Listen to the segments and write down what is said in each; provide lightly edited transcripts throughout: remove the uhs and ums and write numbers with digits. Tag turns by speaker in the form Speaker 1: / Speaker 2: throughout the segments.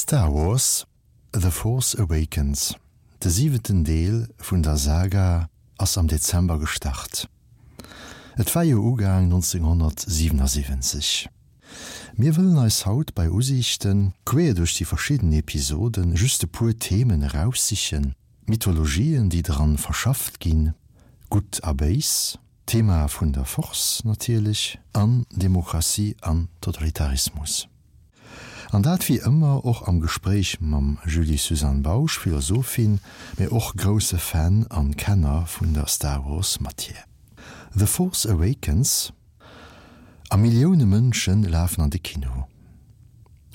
Speaker 1: Star Wars, The Force Awakens, de siwenten Deel vun der Saga, ass am Dezember gestart. Et war jo ugaang 1977. Mir wëllen eis haut bei Usiichten, queer duerch déi verschidden Episoden, just e puer Themen eraussichen, Mythologien, déi dran verschafft ginn, Gutt a Béis, Thema vun der Force natierlech, an Demokratie an Totalitarismus. An dat wéi ëmmer och am Gespréich mam Julie-Suzanne Bausch, Philosophin, mee och grousse Fan an Kenner vun der Star Wars Matière. The Force Awakens a Millioune Mënsche lafen an de Kino.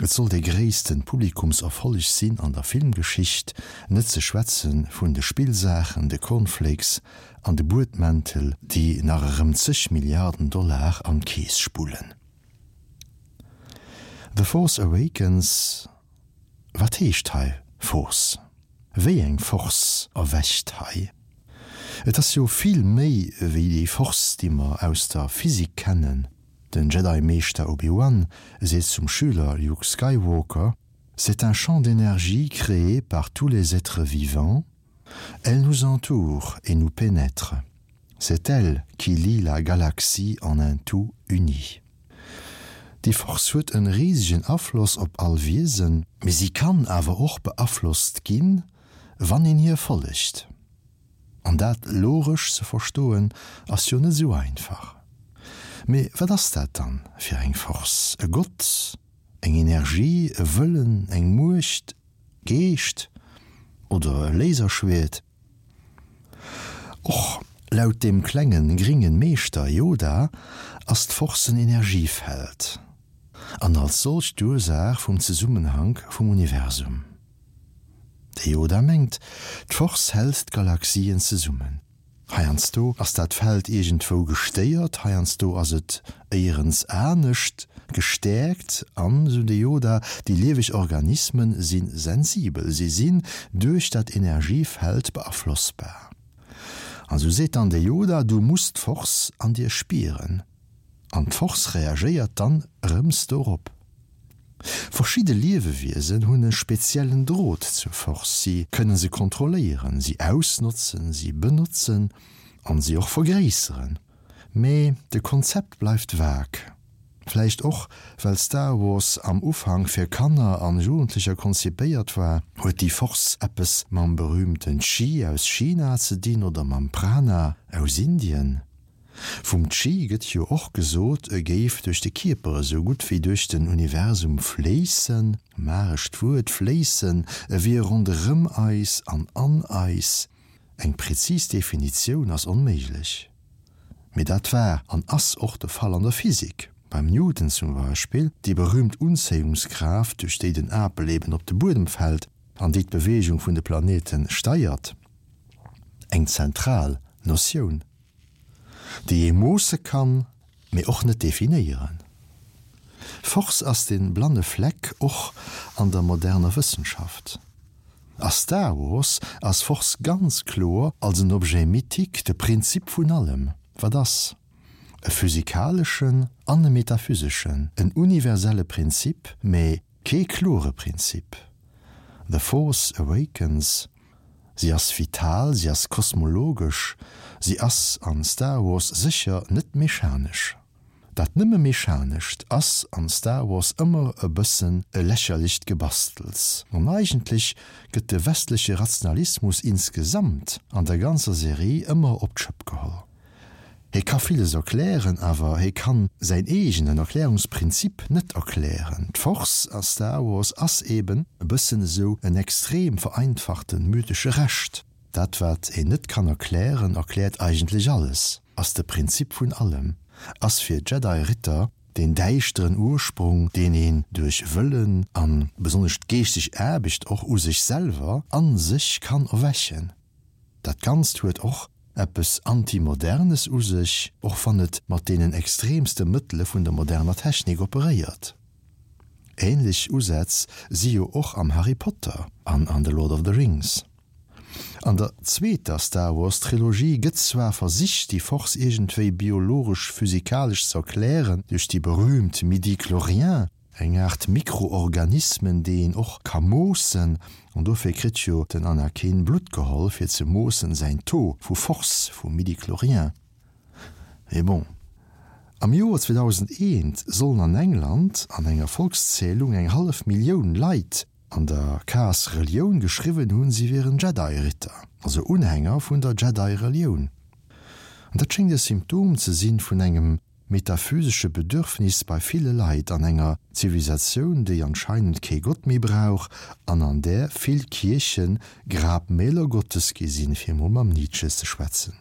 Speaker 1: Et soll dee gréissten Publikumserfolleg sinn an der Filmgeschicht, net ze schwätze vun de Spillsaachen, de Cornflakes an de Buedmäntel, déi nach erëm zeg Milliarden Dollar an d'Keess spullen. The Force Awakens, Wat heescht hei Force? Wéi eng Force erwächt hei? Et ass jo vill méi wéi déi Force, déi mer aus der Physik kennen. Den Jedi-Meeschter Obi-Wan seet zum Schüler Luke Skywalker, C'est un champ d'énergie créé par tous les êtres vivants. Elle nous entoure et nous pénètre. C'est elle qui lie la galaxie en un tout uni. Déi Force huet en risegen Afloss op all Wiesen, mee si kann awer och beaflosst ginn, wann een hir follegt. An dat logesch ze verstoen ass jo net esou einfach. Mee wat ass dat dann fir eng Force? E Gott? Eng Energie? E Wëllen? Eng Muecht? Geescht? Oder e Laserschwert? Och laut dem klengen gringen Meeschter Yoda ass d'Force en Energiefeld an als solcht d'Ursaach vum Zesummenhank vum Universum. De Yoda mengt, d'Force hält d'Galaxien zesummen. Heiansdo ass dat Feld iergendwou gestéiert, heiansdo ass et éierens anescht gestäerkt an, esou de Yoda, déi lieweg Organismen si sensibel, si sinn duerch dat Energiefeld beaflossbar. An esou seet dann de Yoda, du muss d'Force an dir spieren. An d'Force reagéiert dann erëms dorop. Verschidde Liewewiesen hunn e speziellen Drot zur Force, si kënne se kontrolléieren, si ausnotzen, si benotzen an si och vergréisseren. Mee de Konzept bleift vag. Vläicht och well Star Wars am Ufank fir Kanner an Jugendlecher konzipéiert war. Huet déi Force eppes mam berühmten Chi aus China ze dinn oder mam Prana aus Indien? Vum Chi gëtt jo och gesot, e géif duerch de Kierper esou gutt wéi duerch den Universum fléissen, magescht Wuert, fléissen, e wier ronderëm eis an an eis. Eng prezis Definitioun ass onméiglech. Mee dat war an ass och de Fall an der Physik, beim Newton zum Beispill, déi berühmt Unzéiungskraaft, duerch déi den Apel eben op de Buedem fält an déi d'Beweegung vun de Planete steiert, eng zentral Notioun. Déi ee moosse kann, mee och net definéieren. Force ass de blanne Fleck och an der moderner Wëssenschaft. A Star Wars ass Force ganz kloer als en Objet mythique de Prinzip vun allem, wat ass. E physikaleschen an e metaphyseschen, en universelle Prinzip, mee Kee klore Prinzip. The Force Awakens, Si ass vital, si ass kosmologesch, si ass an Star Wars sécher net mechanesch. Dat nëmme Mechanescht ass an Star Wars ëmmer e bëssen e lächerlecht Gebastels. An eigentlech gëtt de westleche Rationalismus insgesamt an der ganzer Serie ëmmer op d'Schëpp geholl. Hie ka villes erklären, awer hie kann säin eegenen Erklärungsprinzip net erklären. D'Force a Star Wars ass eben e bëssen esou en extrem vereinfachte mythesche Rescht. Dat wat een net kann erklären, erkläert eigentlech alles, ass de Prinzip vun allem, ass fir Jedi-Ritter deen däischteren Ursprung, deen een duerch Wëllen an besonnesch d'geeschteg Aarbecht och u sech selwer, an sech kann erwächen. Dat Ganzt huet och eppes Antimodernes u sech, och wann et mat deenen extremste Mëttele vun der moderner Technik operéiert. Ähnlech Usätz si jo och am Harry Potter an an The Lord of the Rings. An der zweeter Star Wars Trilogie gëtt zwar versicht déi Force iergendwéi biologesch-physikalesch z'erklären duerch déi berühmt Midi-Chloriens. Eng Aart Mikroorganismen, déi een och ka moossen. An dofir kritt jo den Anakin Blutt geholl, fir ze moossen säin Taux vu Force, vu Midichlorien. Mee bon. Am Joer 2001 sollen an England an enger Volkszählung eng hallef Millioun Leit an der Case Relioun geschriwwen hunn, si wieren Jedi-Ritter, also Unhänger vun der Jedi-Relioun. An dat schéngt e Symptom ze sinn vun engem metaphysesche Bedürfnis bei ville Leit an enger Zivilisatioun, déi anscheinend kee Gott méi brauch an an där vill Kierchen Grabmäler Gottes gi sinn, fir mol mam Nietzsche ze schwätzen.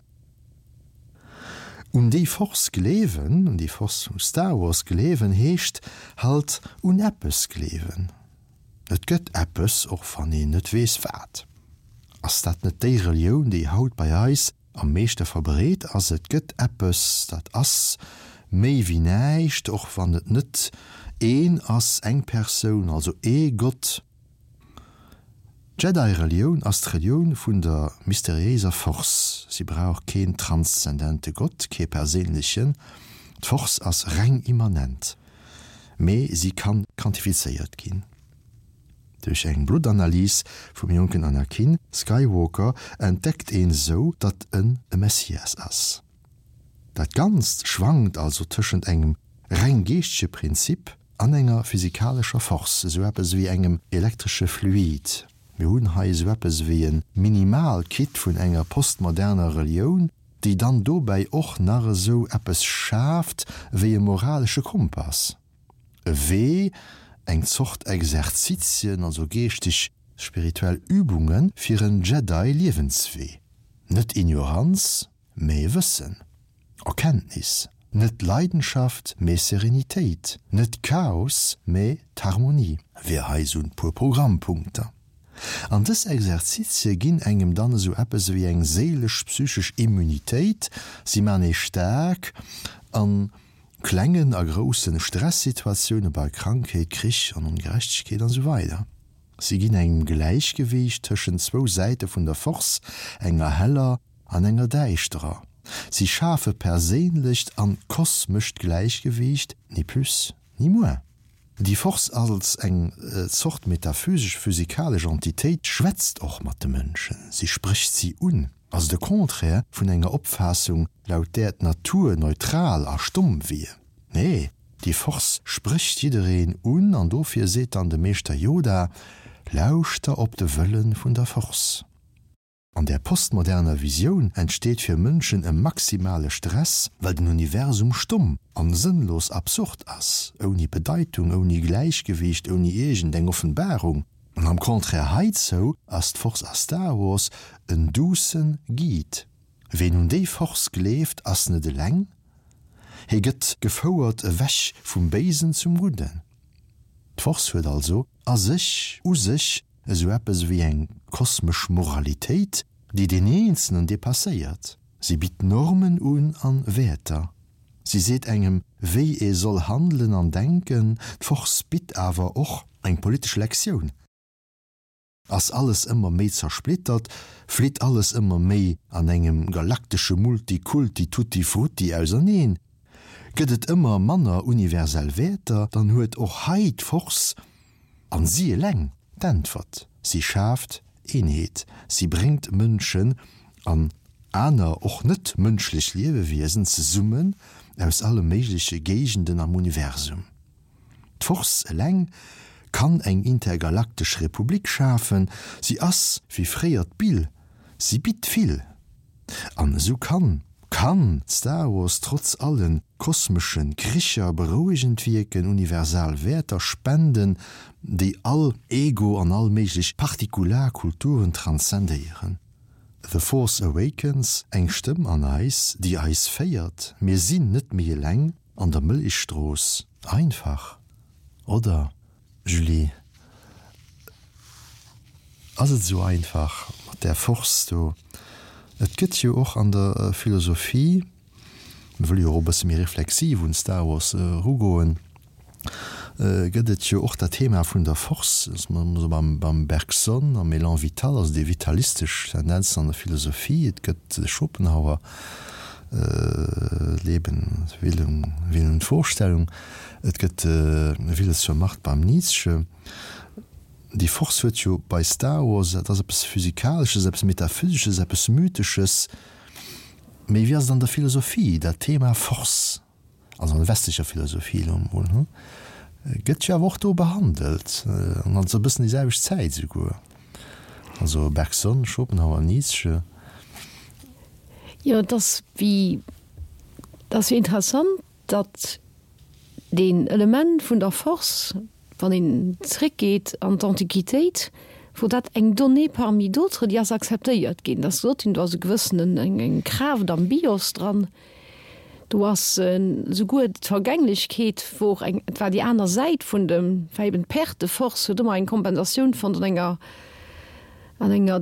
Speaker 1: Un déi Force gleewen, un déi Force vu Star Wars gleewen, heescht halt un eppes gleewen. Et gëtt eppes, och wann een net weess wat. Ass dat net déi Relioun, déi haut bei eis am meeschte verbreet ass? Et gëtt eppes, dat ass méi wéi näischt, och wann et net een ass, eng Persoun, also ee Gott. D'Jedi-Relioun ass d'Relioun vun der mysteriéiser Force. Si brauch keen transzendente Gott, kee perséinlechen. D'Force ass reng immanent, mee si kann quantifizéiert ginn. Duerch eng Bluttanalys vum jonken Anakin Skywalker entdeckt een sou, datt en e Messias ass. Dat Ganzt schwankt also tëschent engem reng geeschtege Prinzip an enger physikalescher Force, esou eppes ewéi engem elektresche Fluid. Mir hunn hei esou eppes ewéi e Minimal-Kit vun enger postmoderner Relioun, déi dann dobäi och nach esou eppes schaaft ewéi e moralesche Kompass, e Wee, eng Zort Exerzitien, also geeschteg, spirituell Übunge fir en Jedi-Liewenswee. Net Ignoranz, Mee Wëssen, Erkenntnis, net Leidenschaft, mee Serenitéit, net Chaos, mee d'Harmonie, wier hei sou en puer Programmpunkter. An dës Exerzitie ginn engem dann esou eppes ewéi eng séilesch-psychesch Immunitéit, si man ee staark an klengen a groussen Stressituatioune bei Krankheet, Krich an Ongerechtegkeet an esou weider. Si ginn engem Gläichgewiicht tëschent zwou Säite vun der Force, enger heller an enger däischterer. Si schafe perséinlecht an kosmescht Gläichgewiicht, ni plus, ni moins. Déi Force als eng Zort metaphysesch-physikalesch Entitéit schwätzt och mat de Mënschen, si sprécht si un, also de Contraire vun enger Opfaassung, laut där d'Natur neutral a stomm wier. Nee, déi Force sprécht jiddereen un an dofir seet dann de Meeschter Yoda, Lauschter op de Wëlle vun der Force. An där postmoderner Visioun entsteet fir Mënschen e maximale Stress, well den Universum stomm an sënnlos absurd ass, ouni Bedeitung, ouni Gläichgewiicht, ouni iergend eng Offenbarung. An am Contraire heizou ass d'Force a Star Wars en doucen Guide. Ween un déi Force gleeft, ass net eleng, hie gëtt gefouert ewech vum Béisen zum Gudden. D'Force huet also a sech, u sech, Esou eppes ewéi eng kosmesch Moralitéit, déi deen Eenzelnen depasséiert. Si bitt Normen un an Wäerter. Si seet engem, wéi ee soll handelen an denken. D'Force bitt awer och eng politesch Lektioun. Ass alles ëmmer méi zersplittert, flitt alles ëmmer méi an engem galaktesche Multikulti-Tutti-Frutti auserneen, gëtt et ëmmer manner universell Wäerter, dann huet och hei d'Force An si eleng d'Äntwert. Si schaaft Eenheet, si bréngt Mënschen an aner, och net mënschlech Liewewiesen zesummen aus alle méigleche Géigenden am Universum. D'Force eleng kann eng intergalaktesch Republik schafen, si ass wéi fréier d'Bill, si bitt vill. An esou kann, kann Star Wars trotz allen kosmeschen Kricher berouegend wierken, universal Wäerter spenden, déi all Ego an all méiglech partikular Kulturen transzendéieren. The Force Awakens, eng Stëmm an eis, déi eis féiert, mir sinn net méi eleng an der Mëllechstrooss. Einfach, oder? Julie, Ass et esou einfach mat där Force do? Et gëtt jo och an der Philosophie, mir wëlle jo och e bësse méi reflexiv un Star Wars erugoen, gëtt et jo och dat Thema vun der Force, dass mer esou beim Bergson am Élan vital, also déi vitalistesch Tendenzen an der Philosophie, et gëtt de Schopenhauer. Leben, Willen, Willen und Vorstellung, et gëtt Wille zur Macht beim Nietzsche. Déi Force huet jo bei Star Wars, dat ass eppes Physikalesches, eppes Metaphysesches, eppes Mythesches. Mee wéi ass et an der Philosophie, dat Thema Force, also an der westlecher Philosophie elo emol, hu, gëtt jo awer och do behandelt, an also e bëssen déi selwecht Zäit esouguer, also Bergson, Schopenhauer, Nietzsche.
Speaker 2: Jo, et ass wéi, et ass jo interessant, datt deen Element vun der Force, wann een zréckgeet an d'Antiquitéit, wor dat eng Donnée parmi d'autres, déi ass akzeptéiert ginn. Et ass gesot ginn, do ass e gewëssenen, eng Kraaft am Bios dran, do ass souguer d'Vergänglechkeet wor eng, et war déi aner Säit vun dem, war eben d'Perte de force, huet ëmmer eng Kompensatioun fonnt an enger, an enger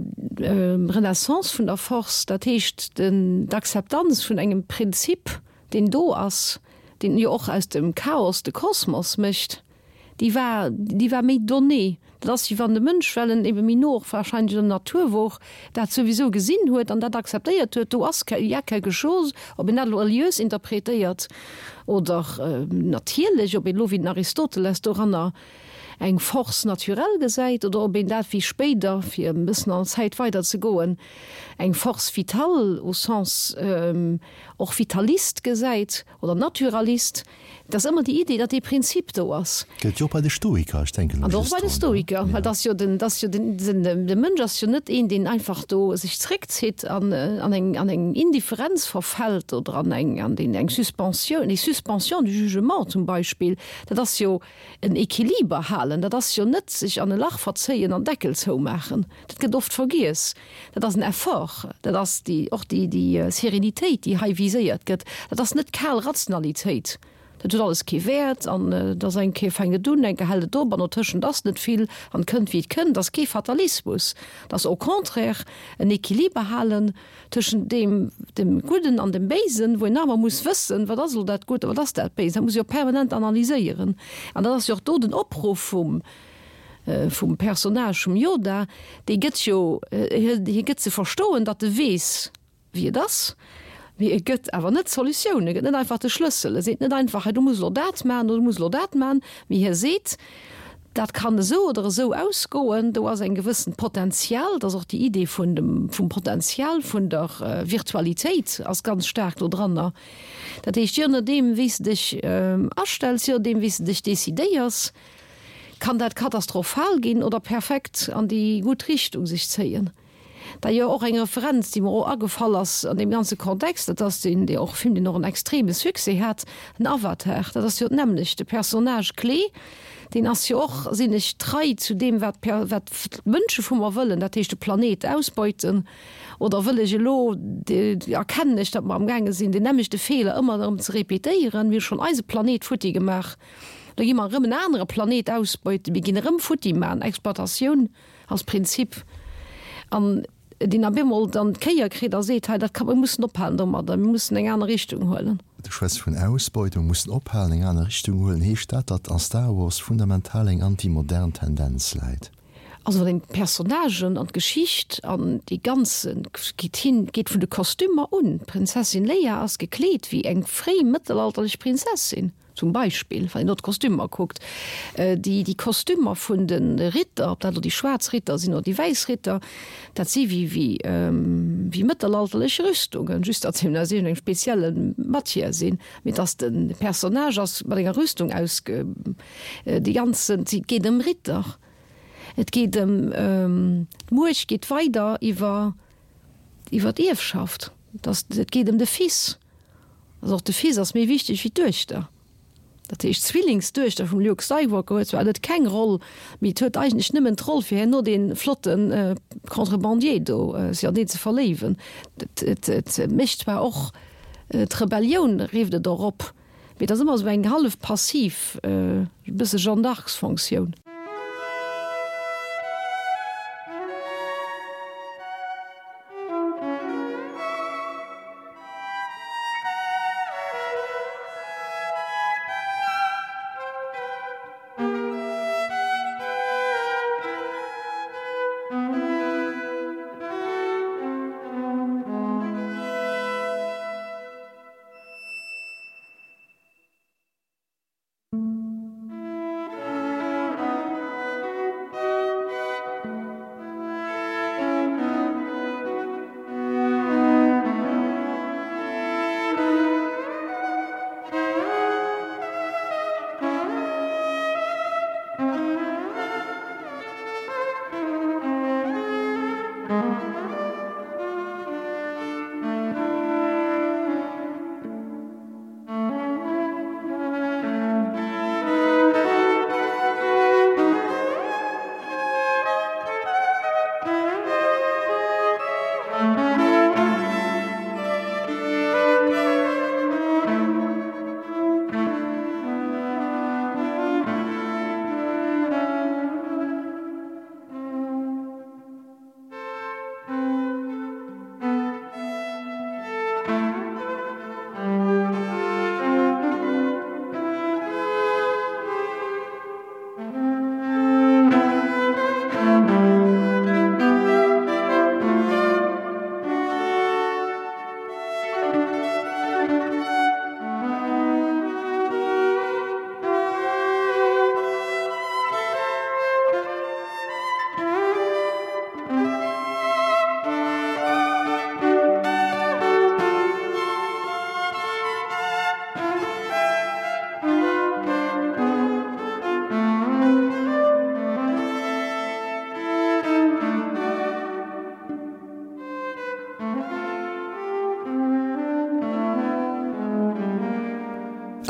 Speaker 2: Renaissance vun der Force, dat heescht den, d'Akzeptanz vun engem Prinzip, deen do ass, deen jo och aus dem Chaos de Kosmos mécht, déi war, déi war méi donnée. Dat ass, wéi wann de Mënsch, well en ebe méi no och wahrscheinlech un der Natur wor, dat souwisou gesinn huet an dat akzeptéiert huet, do ass, il y a quelque chose, ob een dat elo reliös interpretéiert oder natierlech, ob een elo wéi den Aristoteles doranner eng Force naturelle gesäit oder ob een dat wéi spéider, fir e bëssen an der Zäit weider ze goen, eng Force vitale au sens och Vitalist gesäit oder Naturalist, et ass ëmmer déi Idee, datt dee Prinzip do ass.
Speaker 1: Gëllt jo och bei de Stoiker, ech denken
Speaker 2: elo just drun. An och bei de Stoiker, well et ass jo den, et ass jo den, den, de Mënsch ass jo net een, deen einfach do sech zréckzitt an an eng, an eng Indifferenz verfält oder an eng, an deen eng Suspensioun, déi Suspension du jugement zum Beispill, dat ass jo en Equiliber halen, dat ass jo net sech an e Lach verzéien an Deckel zoumaachen, dat gëtt oft vergiess. Dat ass en Effort, dat ass déi, och déi, déi Sérénitéit, déi hei viséiert gëtt. Dat ass net kal Rationalitéit, dat huet alles kee Wäert an et ass eng Kéier fänkt et un, eng Kéier hält et op an dotëschent ass net vill an et kënnt wéi et kënnt. Dat ass kee Fatalismus, dat ass au contraire en Equiliber halen tëschent deem, dem Gudden an dem Béisen, wou een nach ëmmer muss wëssen, wat ass elo dat Gutt a wat ass dat Béist. Dat muss ee jo permanent analyséieren an dat ass jo och do den Opruff vum, vum Personnage vum Yoda, dee gëtt jo, hie gëtt ze verstoen, datt e weess, wéi et ass, mee e gëtt awer net d'Solutioun, e gëtt net einfach de Schlëssel, e seet net einfach, hei du muss elo dat maachen oder du muss elo dat maachen, mee hie seet, dat kann esou oder esou ausgoen, do ass eng gewëssent Potenzial, dat ass och déi Idee vun dem, vum Potenzial vun der Virtualitéit ass ganz staark do dranner. Dat heescht, je nodeem wéi s de dech astells, je nodeem wéi s de dech decidéiers, kann dat katastrophal ginn oder perfekt an déi gutt Richtung sech zéien. D'ailleurs och eng Referenz, déi mer och agefall ass an deem ganze Kontext, dat ass deen, dee och Film, deen och en extreme Succès hat, den Avatar. Dat ass jo d'nämmlecht, de Personnage clé, deen ass jo och, sinn ech trei zu deem, wat wat d'Mënsche vu mer wëllen, dat heescht de Planet ausbeuten, oder wëll ech elo, erkennen ech, datt mer amgaange sinn, deen nämmlechte Feeler ëmmer erëm ze répétéieren, mir hu schonn eise Planet futti gemaach. Da gi mer erëm en anere Planet ausbeuten, mir ginn erëm futti man, Exploitatioun als Prinzip, an deen op eemol dann d'Kéier kritt a seet, hei dat ka, mir mussen ophalen domadder, mir mussen eng aner Richtung huelen.
Speaker 1: Du schwätz vun Ausbeutung, mussen ophalen, eng aner Richtung huelen. Heescht dat, datt a Star Wars fundamental eng anti-modern Tendenz läit?
Speaker 2: Also wann een d'Personnagen an d'Geschicht an déi ganze geet hin, geet vun de Kostümer un, d'Prinzessin Leia ass gekleet wéi eng fréi mëttelalterlech Prinzessin. Zum Beispill, wann een do d'Kostümer kuckt, déi, déi Kostümer vun de Ritter, ob dat elo déi schwaarz Ritter sinn oder déi wäiss Ritter, dat si wéi, wéi, wéi mëttelalterlech Rüstungen, just datt se eben aus iergendengem spezielle Matière sinn. Mee dass de Personnage ass mat enger Rüstung ausge, déi ganzen, et geet ëm Ritter, et geet ëm, d'Muecht geet weider iwwer, iwwer d'Ierfschaft, dass, et geet ëm de Fils. Also och de Fils ass méi wichteg wéi d'Duechter. Dat heescht, d'Zwillingsduechter vum Luke Skywalker huet zwar net keng Roll, mee et huet eigentlech nëmmen d'Roll fir herno dee flotte Contrebandier do, sech an deen ze verléiwen. Et et mécht zwar och d'Rebellioun, rifft et och op, mee et ass ëmmer esou eng hallef passiv, e bësse Jeanne d'Arcs-Fonctioun.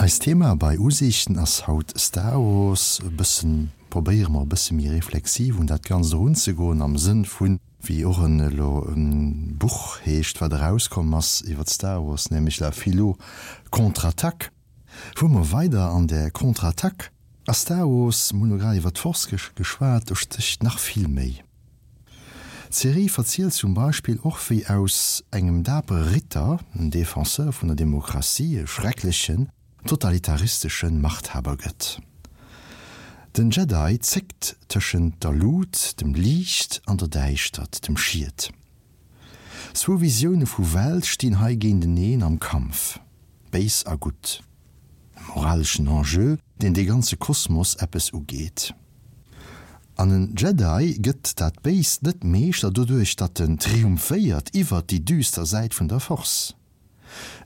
Speaker 1: Eist Thema bei Usiichten ass haut Star Wars. E bëssen probéiere mer e bësse méi reflexiv un dat Ganzt erunzegoen am Sënn vun, wéi och en elo e Buch heescht, wat erauskomm ass iwwer Star Wars, nämlech La Philo Contre-Attaque. Fuere mer weider an där Contre-Attaque. A Star Wars, mir hunn elo grad iwwer d'Force geschwat, do stécht nach vill méi. D'Serie verzielt zum Beispill och wéi aus engem dapere Ritter, en Defenseur vun der Demokratie, e schrecklechen, totalitaristeschen Machthaber gëtt. Den Jedi zéckt tëschent der Lut, dem Liicht, an der Däischtert, dem Schiet. Zwou Visioune vu Welt stinn hei géinteneen am Kampf, Béis a Gutt. E moraleschen Enjeu, deen de ganze Kosmos eppes ugeet. An en Jedi gëtt dat Béist net Meeschter doduerch, datt en triumphéiert iwwert déi düster Säit vun der Force.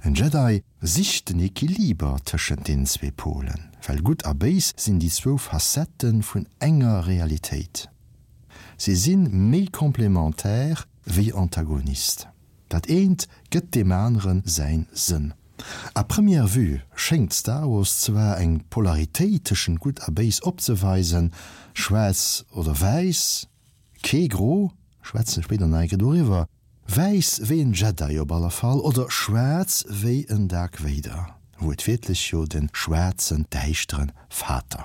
Speaker 1: En Jedi sicht den Equiliber tëschent deenen zwee Polen, well Gutt a Béis sinn déi zwou Facettë vun enger Realitéit. Si sinn méi complémentaire wéi Antagonist. Dat eent gëtt deem anere säin Sënn. À première vue schéngt Star Wars zwar eng Polaritéit tëschent Gutt a Béis opzeweisen, schwaarz oder wäiss, kee Gro, schwätzen spéider nach eng Kéier doriwwer, wäiss wéi en Jedi op alle Fall oder schwaarz wéi en Dark Vader, wuertwiertlech jo den schwaarzen, däischteren Vater.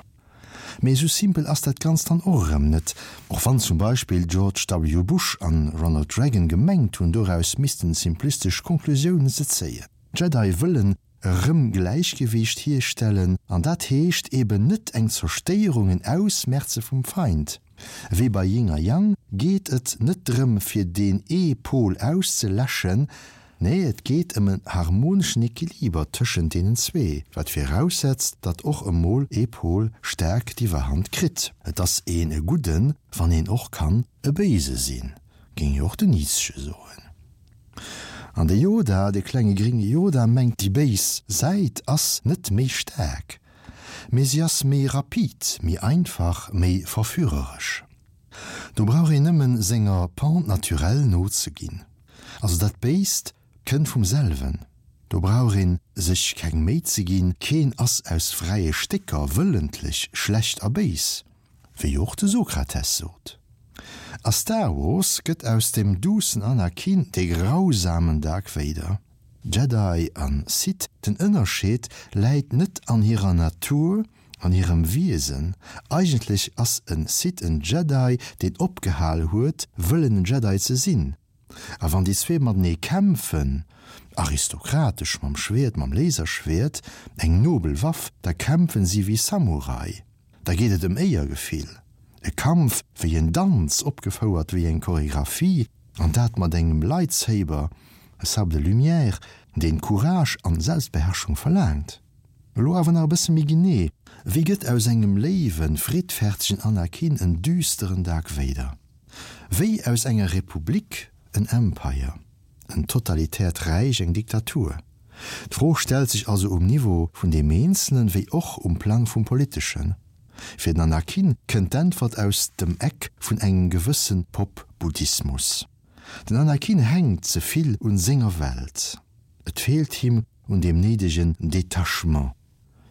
Speaker 1: Mee esou simpel ass dat Ganzt dann och erëm net, och wann zum Beispill George W. Bush an Ronald Reagan gemengt hunn, doraus missten simplistesch Konklusiounen ze zéien. D'Jedi wëllen erëm Gläichgewiicht hierstellen, an dat heescht eben net eng Zerstéierung, en Ausmerze vum Feind. Wéi bei Yin a Yang geet et net drëm fir deen ee Pol auszeläschen, nee et geet ëm en harmoneschen Equiliber tëschent deenen zwee, wat viraussetzt, datt och emol ee Pol staark d'Iwwerhand kritt. Et ass een e Gudden, wann een och kann e Béise sinn, géing jo och den Nietzsche soen. An de Yoda, de klenge gringe Yoda mengt déi béis Säit ass net méi staark, Mee si ass méi rapid, méi einfach, méi verführeresch. Do brauch een nëmmen senger Pente naturelle nozeginn. Also dat Béist kënnt vum selwen, do brauch een sech keng Méi ze ginn, keen ass aus fräie Stécker wëllentlech schlecht a béis, wéi och de Sokrates sot. A Star Wars gëtt aus dem duussen Anakin de grausamen Dark Vader. Jedi an Sith, den Ënnerscheed läit net an hirer Natur, an hirem Wiesen. Eigentlech ass en Sith en Jedi, deen opgehal huet, wëllen en Jedi ze sinn. A wann déi zwee matenee kämpfen, aristokratesch mam Schwäert, mam Laserschwäert, eng nobel Waff, da kämpfen si wéi Samurai. Da geet et ëm Éiergefill. E Kampf wéi en Danz, opgefouert wéi eng Choregraphie, an dat mat engem Lightsaber, e Sabre de lumière, deen Courage an Selbstbeherrschung verlaangt. Elo awer nach e bësse méi genee, Wéi gëtt aus engem léiwen, friddfertegen Anakin en düsteren Dark Vader? Wéi aus enger Republik en Empire, en totalitäert Räich, eng Diktatur? D'Fro stellt sech also um Niveau vun deem Eenzelen wéi och um Plang vum Politeschen. Fir den Anakin kënnt d'Äntwert aus dem Eck vun engem gewësse Pop-Buddhismus. Den Anakin hänkt ze vill un senger Welt. Et feelt him un deem néidegen Detachement.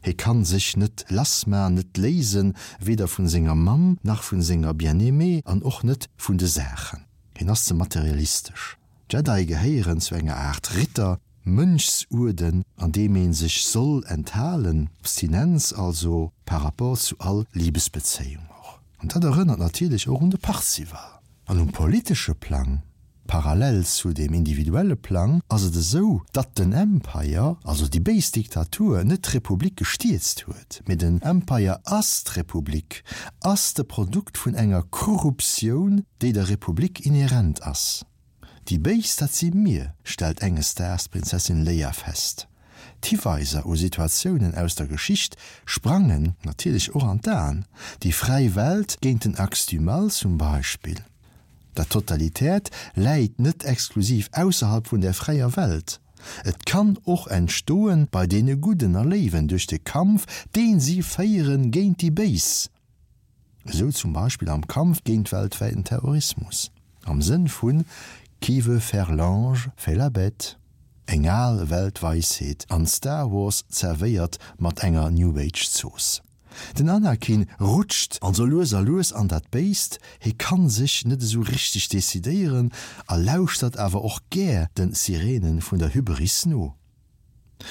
Speaker 1: Hie kann sech net lassman, net léisen, weder vun senger Mamm, nach vun senger Bien-aimée an och net vun de Saachen. Hien ass ze materialistesch. D'Jedi gehéieren zu enger Aart Ritter, Mönchsuerden, an deem ee sech soll enthalen, Abstinenz also par rapport zu all Libesbezéiung och. An dat erënnert natierlech och un de Parzival. An um politesche Plang, parallel zu deem individuelle Plang, ass et esou, datt den Empire, also déi béis Diktatur, net d'Republik gestierzt huet, mee den Empire ass d'Republik, ass de Produkt vun enger Korruptioun, déi der Republik inhärent ass. Déi Béis, dat si mir, stellt enges Daags d'Prinzessin Leia fest. D'Hiweiser u Situatiounen aus der Geschicht sprangen natierlech och an d'Aen, déi fräi Welt géint den Axe du mal zum Beispill. Dat Totalitäert läit net exklusiv ausserhalb vun der fräier Welt, et kann och entstoen bei deene Gudden a Léiwen duerch de Kampf, deen si féieren géint déi Béis. Esou zum Beispill am Kampf géint weltwäiten Terrorismus, am Sënn vun Qui veut faire l'ange, fait la bête. Eng al Weltweisheet an Star Wars zerwéiert mat enger New Age Zooss. Den Anakin rutscht also lues a lues an dat Béist, hie kann sech net esou richteg decidéieren a lauschtert awer och gär den Sirenen vun der Hybris no.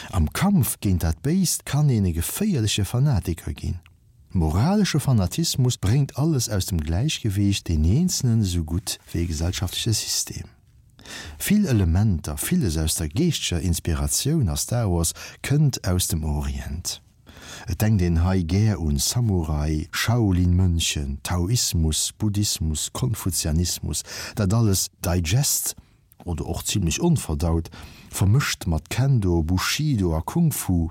Speaker 1: Am Kampf géint dat Béist kann een e geféierleche Fanatiker ginn. Moralesche Fanatismus bréngt alles aus dem Gläichgewiicht, deen Eenzelen esou gutt wéi e gesellschaftleche System. Vill Elementer, villes aus der geeschteger Inspiratioun a Star Wars kënnt aus dem Orient. Et denkt een hei gär un Samurai, Shaolin-Mönchen, Taoismus, Buddhismus, Konfuzianismus, dat alles digest, oder och zimlech onverdaut, vermëscht mat Kendo, Bushido a Kung Fu.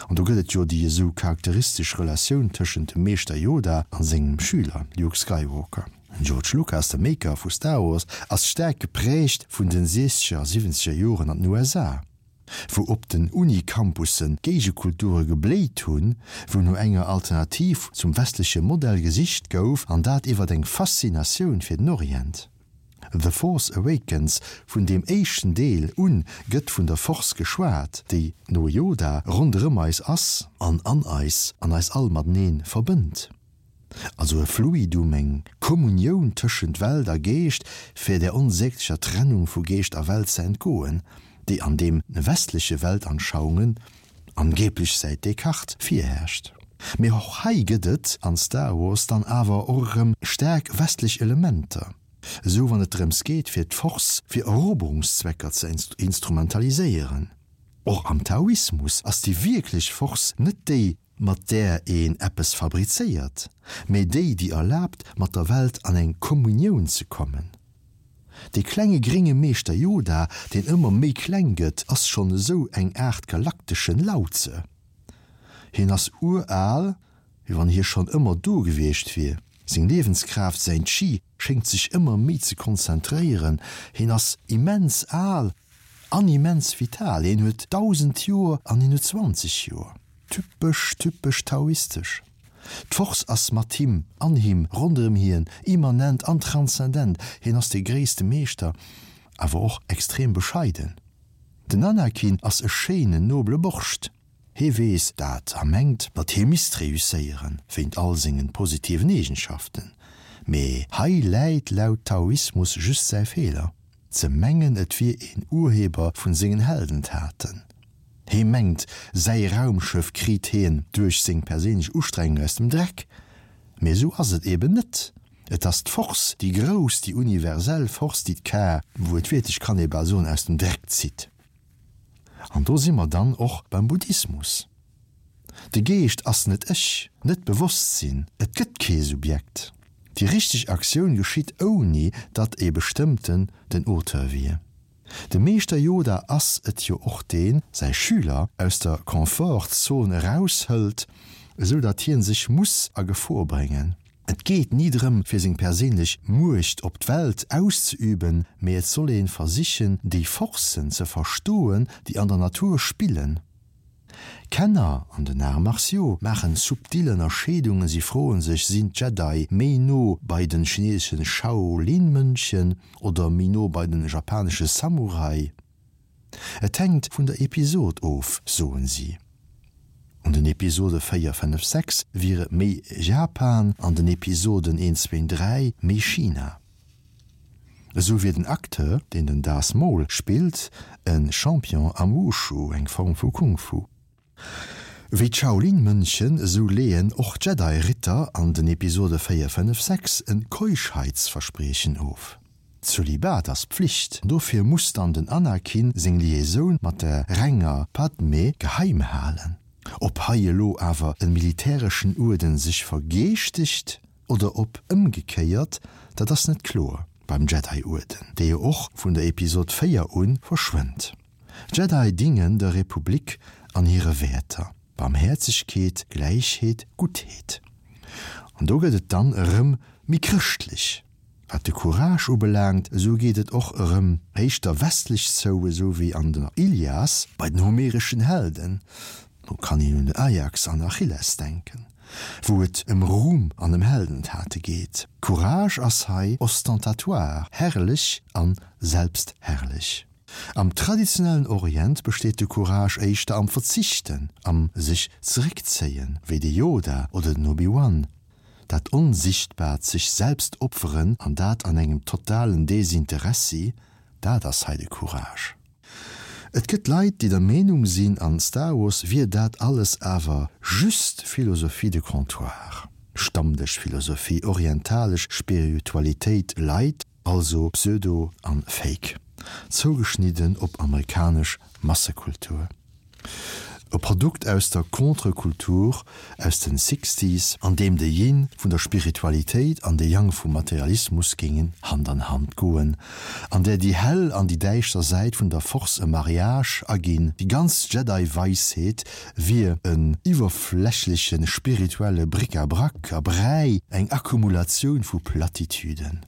Speaker 1: An do gëtt et jo déi esou charakteristesch Relatioun tëschent dem Meeschter Yoda a sengem Schüler Luke Skywalker. Den George Lucas, de Maker vu Star Wars, ass staark geprägt vun den siechzeger a siwwenzeger Joren an den USA, wou op den Uni-Campussen Géigekulture gebléit hunn, wou no enger Alternativ zum westleche Modell gesicht gouf, an dat iwwert eng Faszinatioun fir den Orient. The Force Awakens, Vun deem éischten Deel un gëtt vun der Force geschwat, déi, no Yoda, ronderëm eis ass an an eis an eis all mateneen verbënnt. Also e Fluidum, eng Kommunioun tëschent Welt a Geescht, fir där onsäglecher Trennung vu Geescht a Welt ze entgoen, déi an deem westleche Weltanschauungen, angeblech säit Descartes, virherrscht. Mee och hei gëtt et an Star Wars dann awer och erëm staark westlech Elementer, esou wann et drëms geet fir d'Force fir Eroberungszwecker ze instrumentaliséieren. Och am Taoismus ass déi wierklech Force net déi, mat där een eppes fabrizéiert, mee déi, déi erlaabt, mat der Welt an eng Kommunioun ze kommen. Dee klenge grénge Meeschter Yoda, deen ëmmer méi kleng gëtt, ass schonn esou eng Aart galakteschen Lao-Tse. Hien ass uraal, wéi wann hie schonn ëmmer do gewiescht wier. Seng Liewenskraaft, säin Chi, schéngt sech ëmmer méi ze konzentréieren. Hien ass immens al an immens vital. Hien huet 1.000 Joer an hien huet 20 Joer. Typesch, typesch taoistesch. D'Force ass mat him, an him, ronderëm hien, immanent an transzendent. Hien ass de gréisste Meeschter, awer och extrem bescheiden. Den Anakin ass e schéinen, nobele Borscht. Hee weess dat a mengt, datt hie misst reusséieren, wéint all sengen positiven Eegenschaften. Mee hei läit laut Taoismus just säi Feeler, ze mengen et wier een Urheber vun sengen Heldentaten. Hee mengt, säi Raumschëff kriit heen duerch seng perséinlech Ustrengung aus dem Dreck. Mee esou ass et eben net. Et ass d'Force, déi grouss, déi universell Force, déi d'Kar, wuertwiertlech kann ee bal soen, aus dem Dreck zitt. An do si mer dann och beim Buddhismus. De Geescht ass net ech, net d'Bewosstsinn, et gëtt kee Subjekt. Déi richteg Aktioun geschitt ouni datt ee bestëmmten den Auteur wier. De Meeschter Yoda ass et jo och deen säi Schüler aus der Confort-Zon eraushëlt, esou datt hien sech muss a Gefor bréngen. Et geet ni drëm fir seng perséinlech Muecht op d'Welt auszeüben, mee et soll een versichen déi Forcen ze verstoen déi an der Natur spillen. Kenner an den Arts martiaux maachen subtil Ënnerscheedungen, si froen sech, sinn d'Jedi méi no bei den chineseschen Shaolin-Mönchen oder méi no bei den japanesche Samurai? Et hänkt vun der Episod of, soen si. An den Episode 4, 5, 6 wier et méi Japan, an den Episoden 1, 2, 3 méi China. Esou wier den Acteur, deen den Darth Maul spillt, e Champion am Wushu, eng Form vu Kung Fu. Wéi d'Shaolin-Mönchen, esou leeën och d'Jedi-Ritter an den Episode 4, 5, 6 e Keuschheitsverspriechen of. Zölibat ass Pflicht, dofir muss dann den Anakin seng Liaisoun mat der renger Padmé geheim halen. Ob hei elo awer e militäreschen Uerden sech vergeeschtegt? Oder ob ëmgekéiert, dat ass net kloer beim Jedi-Uerden, dee jo och vun der Episod 4 un verschwënnt. D'Jedi dingen der Republik an hire Wäerter, Barmhäerzegkeet, Gläichheet, Guttheet. An do gëtt et dann erëm méi chrëschtlech. Wat de Courage ubelaangt, esou geet et och erëm éischter westlech zou, esou wéi an der Ilias bei den homereschen Helden, do kann een un den Ajax an Achilles denken, wou et ëm Ruhm an ëm Heldentate geet. Courage ass hei ostentatoire, herrlech an selbstherrlech. Am traditionellen Orient besteet de Courage éischter am Verzichten, am sech zeréckzéien, wéi de Yoda oder den Obi-Wan. Dat onsichtbaart sech selbst opferen an dat an engem totalen Desinteressi, dat ass hei de Courage. Et gëtt Leit, déi der Meenung sinn, an Star Wars wier dat alles awer just Philosophie de comptoir, Stammdëschphilosophie, orientalesch Spiritualitéit light, also Pseudo an Fake, zougeschnidden op amerikanesch Massekultur. E Produkt aus der Contre-Kultur aus den Sixties, an deem de Yin vun der Spiritualitéit an de Yang vum Materialismus géingen Hand an Hand goen, an där déi hell an déi däischter Säit vun der Force e Mariage aginn. Déi ganz Jedi-Weisheet wier en iwwerflächleche spirituelle Bric-à-brac a Bräi, eng Akkumulatioun vu Plattitüden.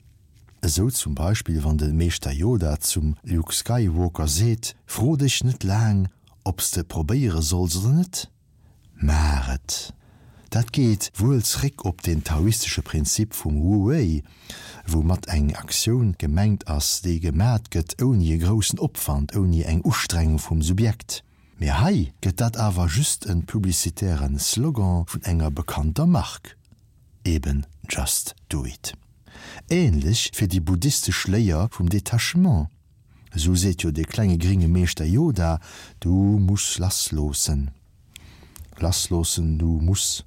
Speaker 1: Esou zum Beispill wann de Meeschter Yoda zum Luke Skywalker seet, Fro dech net laang ob s de probéiere solls oder net, maach et! Dat geet wuel zréck op den taoistesche Prinzip vum Wu Wei, woumat eng Aktioun gemengt ass, déi gemat gëtt ouni e groussen Opwand, ouni eng Ustrengung vum Subjekt. Mee hei gëtt dat awer just en publicitären Slogan vun enger bekannter Mark. Eben just do it. Ähnlech fir déi buddhistesch Léier vum Detachement. Esou seet jo de klenge gringe Meeschter Yoda, Du muss lassloossen. Lassloossen, du muss.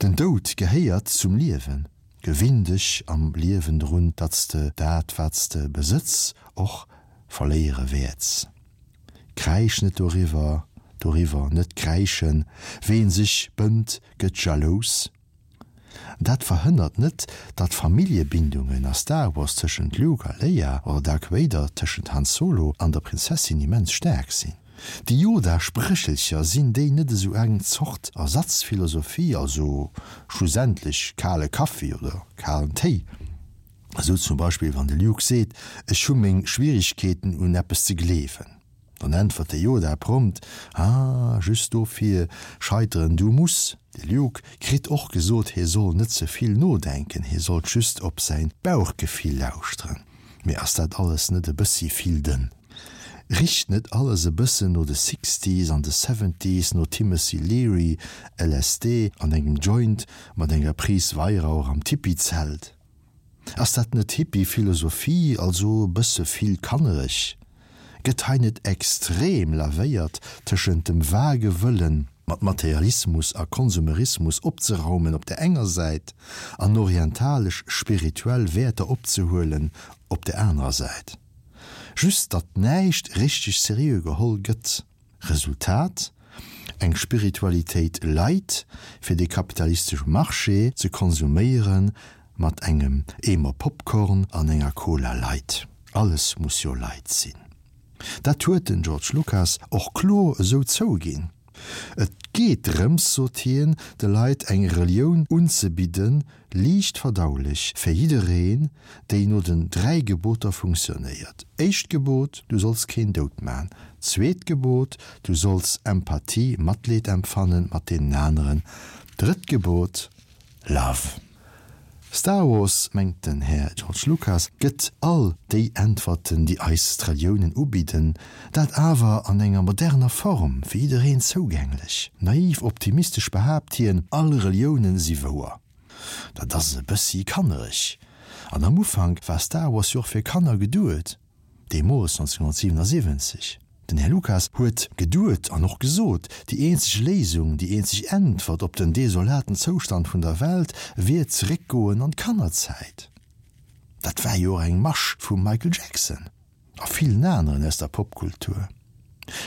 Speaker 1: Den Doud gehéiert zum Liewen. Gewinn dech am Liewen drun, datt s de dat, wat s de besëtz, och verléiere wäerts. Kräisch net doriwwer, doriwwer net kräischen, ween sech bënnt, gëtt jalous. Dat verhënnert net, datt Familljebindungen a Star Wars tëschent Luke a Leia oder Dark Vader tëschent Han Solo an der Prinzessin immens staark sinn. Déi Yoda-Spréchelcher, sinn déi net esou eng Zort Ersatzphilosophie, also schlussendlech kale Kaffi oder kalen Téi? Esou zum Beispill wann de Luke seet, Ech hu meng Schwierigkeeten un eppes ze gleewen. Dann äntwert de Yoda prompt, Ah, just dofir scheiteren, du muss. De Luke kritt och gesot, hie soll net ze vill nodenken, hie sollt just op säin Bauchgefill lauschteren. Mee ass dat alles net e bëssi vill dënn? Richt net alles e bëssen no de Sixties an de Seventies, no Timothy Leary, LSD an engem Joint mat enger Prise Weihrauch am Tipi-Zelt? Ass dat net Hippie-Philosophie, also e bësse vill kannereg? Gëtt hei net extrem lavéiert tëschent dem vage Wëllen, mat Materialismus a Konsumerismus opzeraumen op der enger Säit an orientalesch spirituell Wäerter opzehuelen op der anerer Säit? Just datt näischt richteg seriö geholl gëtt. Resultat, Eng Spiritualitéit light fir de kapitalistesche Marché ze konsuméiere mat engem Eemer Popcorn an enger Cola light. Alles muss jo light sinn. Dat huet den George Lucas och kloer esou zouginn. Et geet drëms, sot hien, de Leit eng Relioun unzebidden, liicht verdaulech fir jiddereen, déi no den 3 Geboter funktionéiert. Éischt Gebot, Du solls keen dout man. Zweet Gebot, Du solls Empathie, Matleed empfannen mat deenen aneren. Drëtt Gebot, Love. Star Wars, mengt den Här George Lucas, gëtt all déi Äntwerten, déi eis d'Reliounen ubidden, dat awer an enger moderner Form, fir jiddereen zougänglech. Naiv optimistesch behaapt hien, all Reliounen si wouer. Dat ass e bëssi kannereg. An am Ufank war Star Wars jo och fir Kanner geduet, deemools 1977. Den Här Lucas huet geduet an och gesot, déi eenzeg Léisung, déi eenzeg Äntwert op den desolaten Zoustand vun der Welt wier zeréckgoen an d'Kannerzäit. Dat war jo och eng Masch vum Michael Jackson. A villen aneren aus der Popkultur.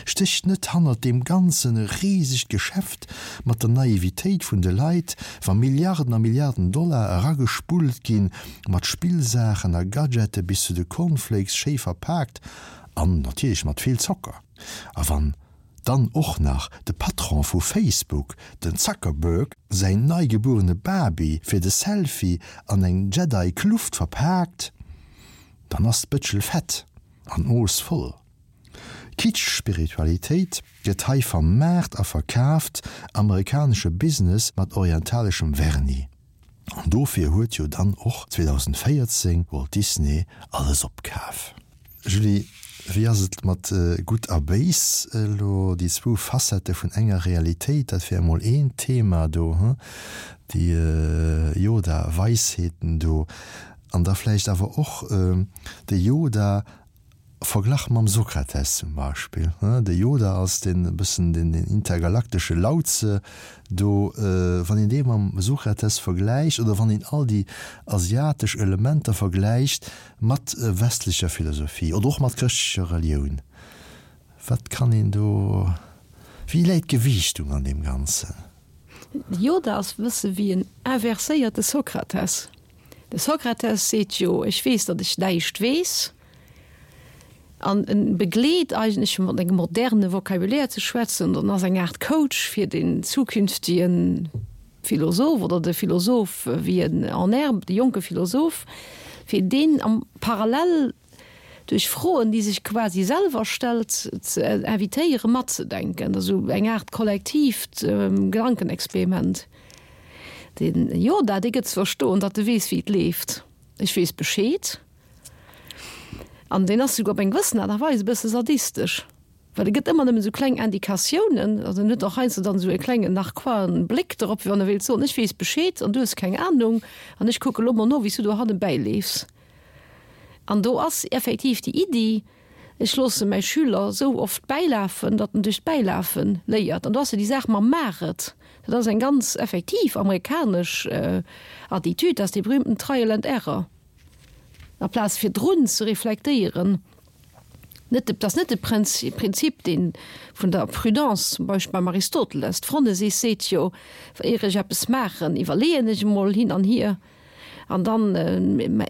Speaker 1: Stécht net hannert deem Ganzen e risegt Geschäft mat der Naivitéit vun de Leit, wa Milliarden a Milliarden Dollar eragespullt ginn, mat Spillsaachen a Gadgete bis zu de Cornflakes schéi verpaakt an natierlech mat vill Zocker? A wann dann och nach de Patron vu Facebook, den Zuckerberg, säin neigebuerene Baby fir de Selfie an eng Jedi-Kluft verpaakt, Dann ass d'Bëtschel fett an d'Mooss voll. Kitsch-Spiritualitéit gëtt hei vermaart a verkaaft, amerikanesche Business mat orientaleschem Vernis. An dofir huet jo dann och 2014 Walt Disney alles opkaf. Julie, Wéi ass et mat Gutt a Béis elo, déi zwou Facettë vun enger Realitéit, dat wär emol een Thema do, hu, déi Yoda-Weisheeten do, an da vläicht awer och de Yoda verglach mam Sokrates zum Beispill, hu, de Yoda als deen e bëssen den intergalaktesche Lao-Tse do, wann een dee mam Sokrates vergläicht oder wann een all déi asiatesch Elementer vergläicht, Mat westlecher Philosophie oder och mat chrëschtlecher Relioun, wat kann een do, wéi läit d'Gewiichtung an deem Ganzen?
Speaker 2: De Yoda ass e bësse wéi en inverséierte Sokrates. De Sokrates seet jo, ech weess, datt ech näischt weess. An en begleet eigentlech, fir mat engem moderne Vocabulaire ze schwätzen, an ass eng Aart Coach fir den zukünftigen Philosoph oder de Philosoph wéi en en herbe, de jonke Philosoph, fir deen am Parallel duerch Froen, déi sech quasi selwer stellt, ze invitéiere matzedenken. Dat ass esou eng Aart kollektiivt Gedankenexperiment. Den Yoda, dee gëtt ze verstoen, datt e weess, wéi et leeft. Ech weess Bescheed. An deen ass souguer op eng gewëssen Aart a Weis e bësse sadistesch. Well e gëtt ëmmer nëmmen esou kleng Indikatiounen, also en huet och heiansdo dann esou e klengen narquoisen Bléck dorop, wéi wann e wéilt soen, ech weess Bescheed an du hues keng Ahnung an ech kucke lo mol no, wéi s du dohanne bäileefs. An do ass effektiv déi Iddi, ech loosse mäi Schüler esou oft bäilafen, datt en duerch d'Bäilafe léiert. An do ass jo déi Saach mam Maach et, dat ass eng ganz effektiv amerikanesch Attitude, dat ass dee berühmten Trial and Error, aplaz virdrun ze reflektéieren. Net de, dat ass net de Prinzip, dee vun der Prudence zum Beispill beim Aristoteles. D'Phronesis seet jo, Éier ech eppes maachen, iwwerleeën ech emol hin an hier an dann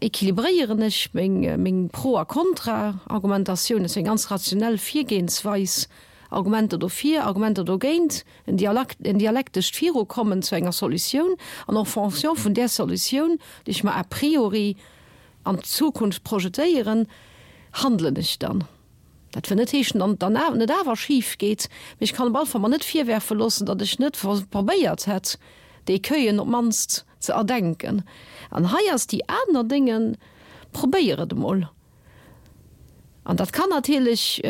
Speaker 2: équilibréieren ech meng, meng Pro a Kontra-Argumentatioun. Dat ass eng ganz rationell Virgehensweis, Argumenter dofir, Argumenter dogéint, en Dialakt, en dialektescht Virukommen zu enger Solutioun an en fonction vun där Solutioun, déi ech mer a priori an d'Zukunft projetéieren, handelen ech dann. Dat wëll net heeschen, datt et dann net awer schif geet, mee ech kann op alle Fall mer net virwerfe loossen, datt ech net probéiert hätt, déi Écueillen op d'mannst ze erdenken. An hei ass déi aner Dénge, probéier et emol. An dat kann natierlech,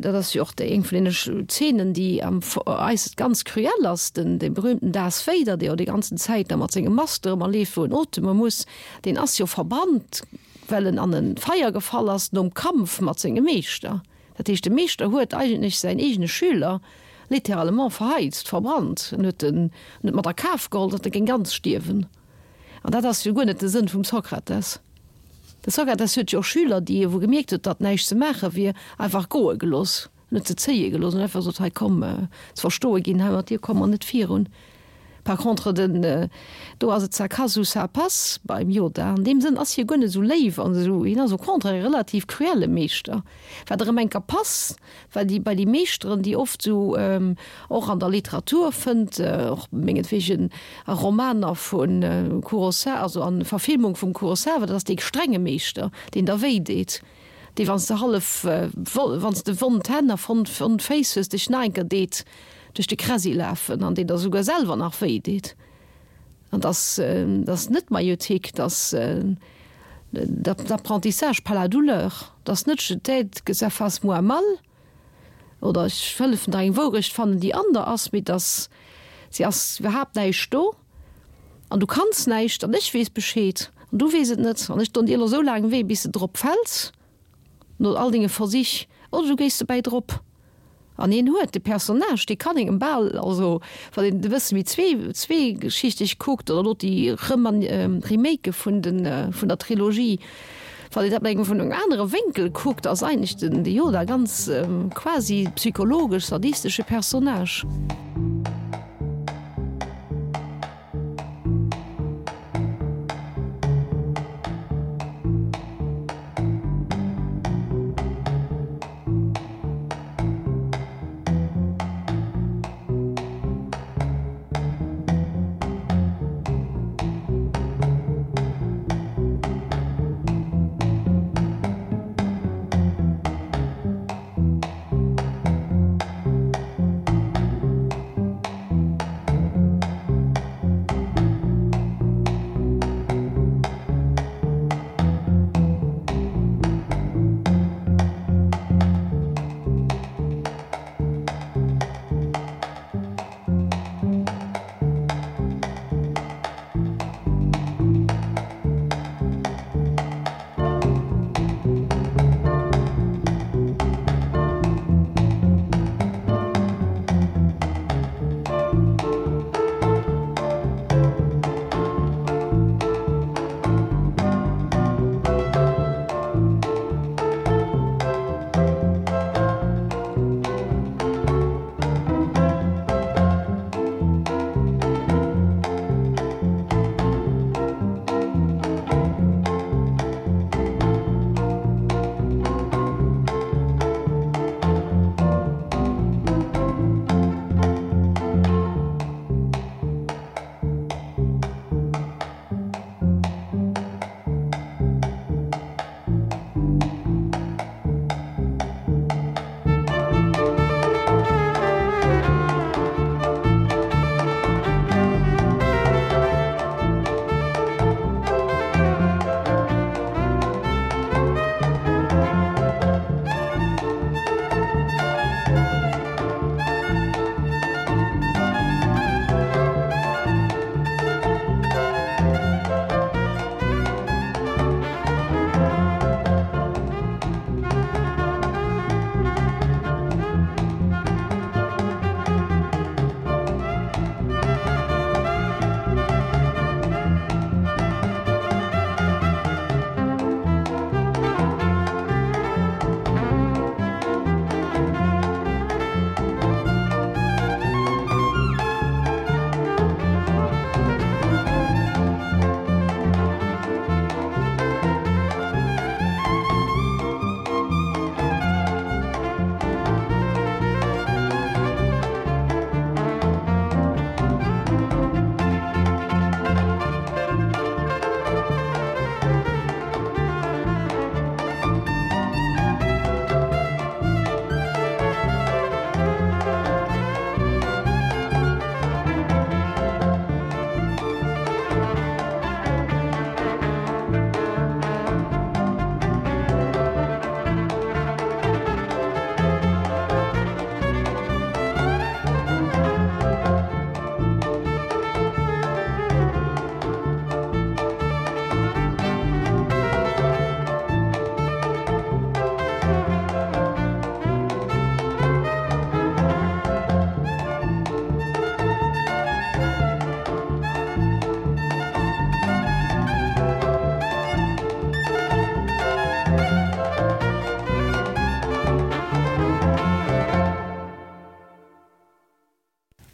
Speaker 2: dat ass jo och déi eng vun deene Zeenen, déi am eis ganz cruel ass, den dee berühmten Darth Vader, dee jo déi ganzen Zäit da mat sengem Master ëmmer leeft, wou en oteme muss, deen ass jo verbrannt, well en an e Feier gefall ass nom Kampf mat sengem Meeschter. Dat heescht, de Meeschter huet eigentlech säin eegene Schüler littéralement verheizt, verbrannt. En huet en huet mat a Kaf geholl, datt e géing ganz stierwen. An dat ass jo guer net de Sënn vum Sokrates. De Sokrates huet jo och Schüler, déi e wou gemierkt huet, datt näischt ze maache wier, einfach goe gelooss, net ze zéie gelooss an einfach gesot, hei komm, ze verstoe ginn, hei mat dir komme mer net virun. Par contre den, do ass et ça casse ou ça passe beim Yoda. An deem Sënn ass hie guer net esou léif an esou, hien ass au contraire e relativ cruelle Meeschter, wat erëm enker pass Well déi bei déi Meeschteren, déi oft esou och an der Literatur fënnt, och mengetwegen a Romaner vu Kurosawa, also a Verfilmung vum Kurosawa, dat ass dee strenge Meeschter, deen der wéi deet, dee wann s de hallef, wann s de wond Hänn a wond Féiss hues, dech nach enker deet duerch de Kräsi lafen an deen der esouguer selwer nach wéi deet. An dass dass net d'Maïeutique, dass d'Apprentissage par la douleur, dass net je t'aide que ça fasse moins mal oder ech hëllefen der eng Wourecht fannen, déi an der ass, mee dass se ass iwwerhaapt näischt do an du kanns näischt an ech weess Bescheed an du weess et net an ech don dir elo esou laang wéi bis de drop fäls. No all denge Versich, oder du géis dobäi drop. An hien huet de Personnage, dee kann engem bal, also wann een e bësse méi zweegeschichteg kuckt, oder elo déi Remake vun de vun der Trilogie, wann een dat mat engem vun engem anere Wénkel kuckt, ass eigentlech den de Yoda ganz quasi psychologesch sadistesche Personnage.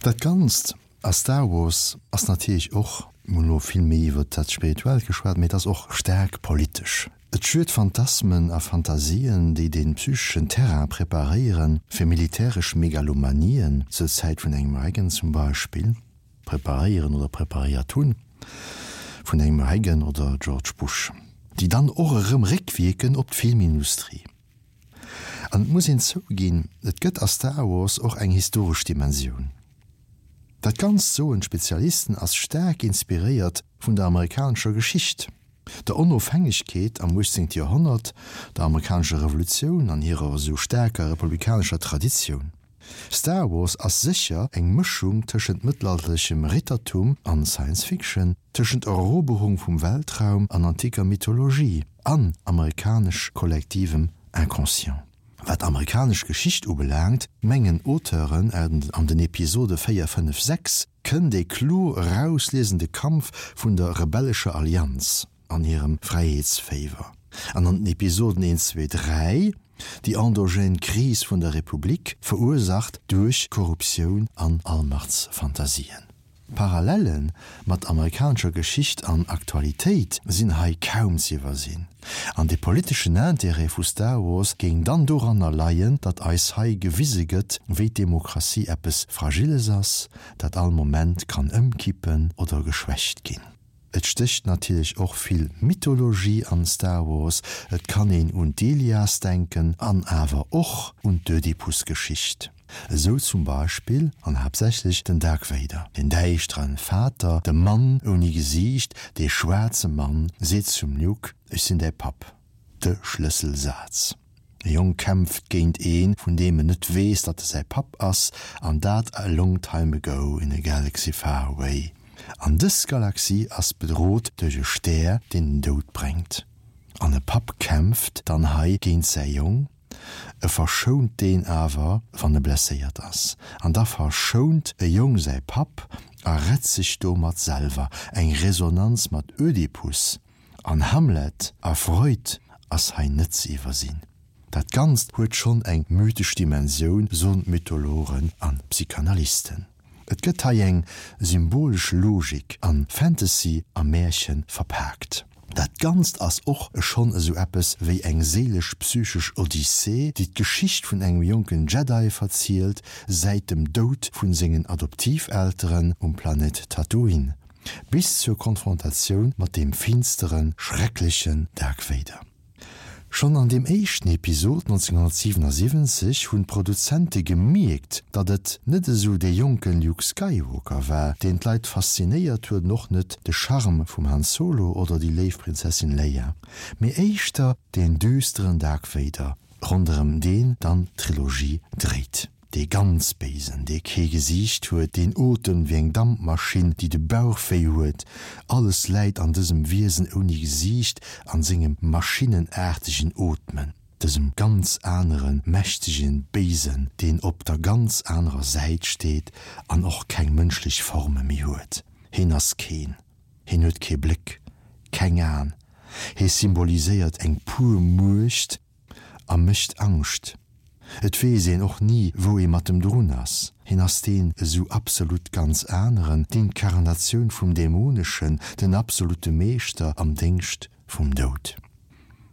Speaker 1: Dat Ganzt a Star Wars ass natierlech och, mir hunn elo vill méi iwwert dat Spirituellt geschwat, mee et ass och staark politesch. Et schürt Phantasmen a Fantasien, déi de psycheschen Terrain preparéiere fir militäresch Megalomanien, zur Zäit vun engem Reagan zum Beispill, preparéieren oder preparéiert hunn, vun engem Reagan oder George Bush, déi dann och erëm réckwierken op d'Filmindustrie. An et muss een zouginn, et gëtt a Star Wars och eng historesch Dimensioun. Dat Ganzt, soen d'Spezialisten, ass staark inspiréiert vun der amerikanescher Geschicht, der Onofhängegkeet am 18. Joerhonnert, der amerikanescher Revolutioun an hirer esou staarker republikanescher Traditioun. Star Wars ass sécher eng Mëschung tëschent mëttelalterlechem Rittertum an Science Fiction, tëschent Eroberung vum Weltraum an antiker Mythologie an amerikanesch kollektivem Inconscient. Wat amerikanesch Geschicht ubelaangt, mengen Auteuren an den Episode 4, 5, 6 kënnt ee kloer erausliesen de Kampf vun der rebellescher Allianz an hirem Fräiheetsféiwer, an an den Episoden 1, 2, 3 déi endogène Kris vun der Republik, verursacht duerch Korruptioun an Allmachtsfantasien. Parallele mat amerikanescher Geschicht an Aktualitéit sinn hei kaum z'iwwersinn. An de politeschen Intérêt vu Star Wars géing dann doranner leien, datt eis hei gewise gëtt, wéi d'Demokratie eppes Fragiles ass, dat all Moment kann ëmkippen oder geschwächt ginn. Et stécht natierlech och vill Mythologie an Star Wars, et kann een un d'Ilias denken an awer och un d'Ödipus-Geschicht. Esou zum Beispill, an haaptsächlech, den Dark Vader, den däischteren Vater, de Mann ouni Gesiicht, dee schwaarze Mann, seet zum Luke, Ech sinn däi Papp. De Schlësselsaz. E Jong kämpft géint een, vun deem en net weess, datt e säi Papp ass, an dat a long time ago in a galaxy far away. An dës Galaxie ass bedrot duerch e Stär, deen den Doud bréngt. An e Papp kämpft dann hei géint säi Jong, e verschount deen awer, wann e blesséiert ass. An da verschount e Jong säi Papp a rett sech domat selwer. Eng Resonanz mat Ödipus. An Hamlet a Freud ass hei net ze iwwersinn. Dat Ganzt huet schonn eng mythesch Dimensioun, soen d'Mythologen an Psychanalysten. Et gëtt hei eng symbolesch Logik an Fantasy a Märchen verpaakt. Dat Ganzt ass och schonn esou eppes wéi eng séilesch-psychesch Odyssee, déi d'Geschicht vun engem jonken Jedi verzielt, säit dem Doud vun sengen Adoptivelteren um Planet Tatooine. Bis zur Konfrontatioun mat deem finsteren, schrecklechen Dark Vader. Schonn an deem éischten Episod 1977 hunn d'Produzente gemierkt, datt et net esou dee jonke Luke Skywalker war, deen d'Leit faszinéiert huet an och net de Charme vum Han Solo oder déi léif Prinzessin Leia, mee éischter deen düsteren Dark Vader, ronderëm deen dann d'Trilogie dréit. Dee ganz Béisen, dee kee Gesiicht huet, deen otemt wéi eng Dampmaschinn, déi de Bauch wéi huet, alles läit an dësem Wiesen ouni Gesiicht, an sengem maschinenaartegen Ootmen, dësem ganz aneren, mächtegen Béisen, deen op der ganz anerer Säit steet an och keng mënschlech Forme méi huet. Heen ass keen. Heen huet kee Bléck, keng Aen. Hee symboliséiert eng pur Muecht, A mécht Angscht. Et weess een och ni, wou ee mat em drun ass. Hien ass deen esou absolut ganz aneren, d'Inkarnatioun vum Dämoneschen, den absolute Meeschter am Déngscht vum Doud.